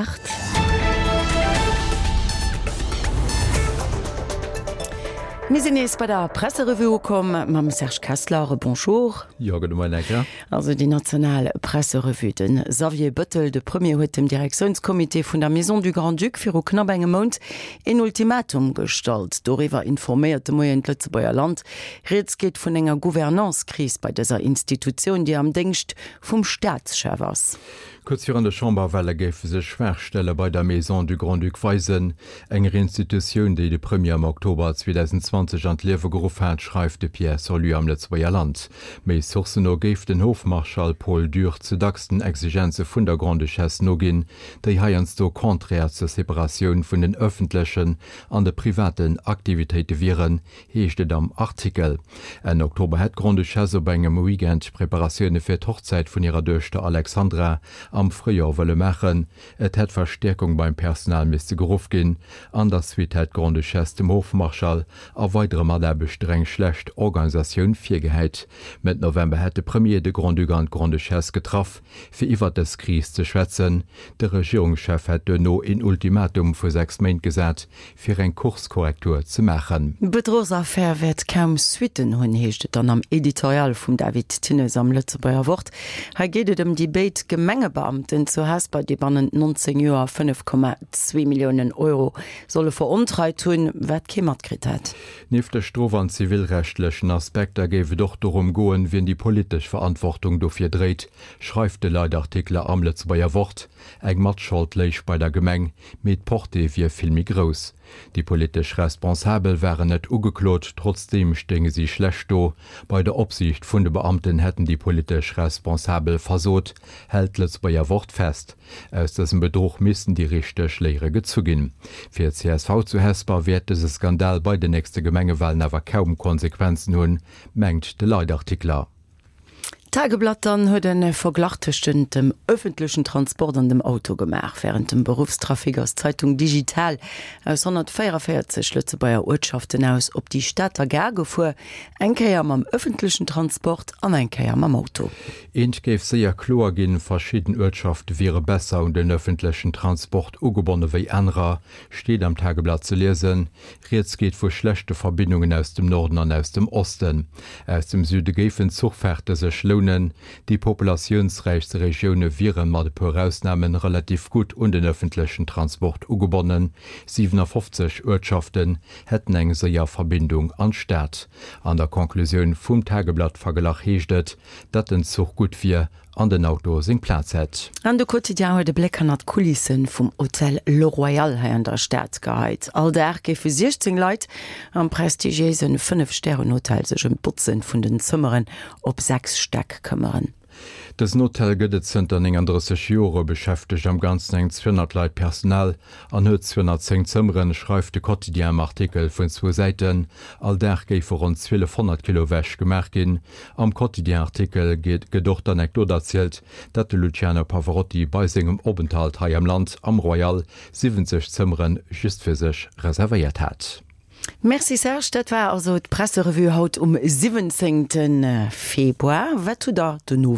8. Mir sinn nees bei der Presserevue ukomm mam Serge Kessler. Bonjour. Jo, gudde Moien, Anka. Also déi national Presserevue. De Xavier Bëttel, de Premier, huet dem Direktiounscomité vun der Maison du Grand-Duc viru knapp engem Mount een Ultimatum gestallt. Doriwwer informéiert de Moien d'Lëtzebuerger Land. Rieds geet vun enger Gouvernance-Kris bei dëser Institutioun, déi am Déngscht vum Staatschef ass. Kuerz virun de Chamberwale géife sech Schwaachstelle bei der Maison du Grand-Duc weisen, enger Institutioun, déi de Premier am Oktober 2020 an d'Liewe geruff hat, schreift de Pierre Sorlu am Lëtzebuerger Land. Méi Sourcen no géif den Hofmarschall Paul Dürr ze dacks den Exigenze vun der Grande-Duchesse noginn, déi heiansdo contraire zur Separatioun vun den ëffentlechen an de privaten Aktivitéite wieren, heescht et am Artikel. Enn Oktober hätt d'Grande-Duchesse op engem Weekend Preparatioune fir d'Hochzäit vun hirer Duechter Alexandra am Fréijoer wëlle maachen. Et hätt Verstäerkung beim Personal misste geruff ginn. An der Suite hätt d'Grande-Duchesse dem Hofmarschall a weidere Mataarbechter eng schlecht Organisatioun virgehäit. Mëtt November hätt de Premier de Grand-Duc an d'Grande-Duchesse getraff, fir iwwert dës Kris ze schwätzen. De Regierungschef hätt duerno een Ultimatum vu 6 Méint gesat, fir eng Kurskorrektur ze maachen. D'Bedruchsaffär wäert kaum Suitten hunn, heescht et dann am Editorial vum David Thinnes am Lëtzebuerger Wort. Hei geet et ëm déi béid Gemengebeamten zu Hesper, déi bannent 19 Joer 5,2 Milliounen Euro solle verontreit hunn, wat kee matkritt hätt. Nieft de strof an zivilrechtlechen Aspekter géif et och dorëm goen, wien déi politesch Verantwortung dofir dréit, schreift de Leitartikler am Lëtzebuerger Wort. Eng Matschold léich bei der Gemeng, mee d'Portée wier vill méi grouss. Déi politesch Responsabel waren net ugeklot, trotzdeem stéinge si schlecht do. Bei der Opsiicht vun de Beamten hätten déi politesch Responsabel versot, hält d'Lëtzebuerger Wort fest. Aus dësem Bedruch missten déi richteg Léiere gezu ginn. Fir d'CSV zu Hesper wäert dëse Skandal bei den nächste Gemengewalen awer kaum Konsequenzen hunn, mengt de Leitartikler. D'Tageblatt dann huet e Verglach tëschent dem ëffentlechen Transport an dem Auto gemaach. Wärend dem Beruffstrafic ass d'Zeitung digital aus 144 Lëtzebuerger Uertschaften aus op déi Stater Gare gefuer, eng Kéier mam ëffentlechen Transport an eng Kéier mam Auto. Eent géif séier kloer ginn, Verschidden Uertschafte wiere besser un den ëffentlechen Transport ugebonne wéi anerer, steet am Tageblatt ze liesen. Rieds geet vu schlechte Verbindungen aus dem Norden an aus dem Osten. Aus dem Süde géifen Zuchfahrte sech lounen. Déi populatiounsräichste Regioune wiere mat e puer Ausname relativ gutt un den ëffentlechen Transport ugebonnen. 57 Uertschaften hätten eng séier Verbindung an d'Stad. An der Conclusioun vum Tageblatt-Verglach heescht et, datt den Zuch gutt wier an den Auto seng Plaz hätt. An de Quotidien huet e Bléck hannert d'Kulisse vum Hotel Le Royal hei an der Stad geheit. All Dag géife 16 Leit am prestigiéise Fënnef-Stären-Hotel sech ëm d'Botze vun den Zëmmeren op 6 Stäck këmmeren. Dësen Hotel gëtt et zënter 39 Jore, beschäftegt am Ganzen eng 200 Leit Personal an huet 210 Zëmmeren, schreift de Quotidien am Artikel vun zwou Säiten. All Dag géife ronn 1.200 Kilo Wäsch gemaach ginn. Am Quotidien-Artikel gëtt och d'Anekdot erzielt, datt de Luciano Pavarotti bei sengem Openthalt hei am Land am Royal 70 Zëmmere just fir sech reservéiert hat. Merci Serge, dat war also d'Presserevue haut um 17 Februar. Wat hutt der den Owend?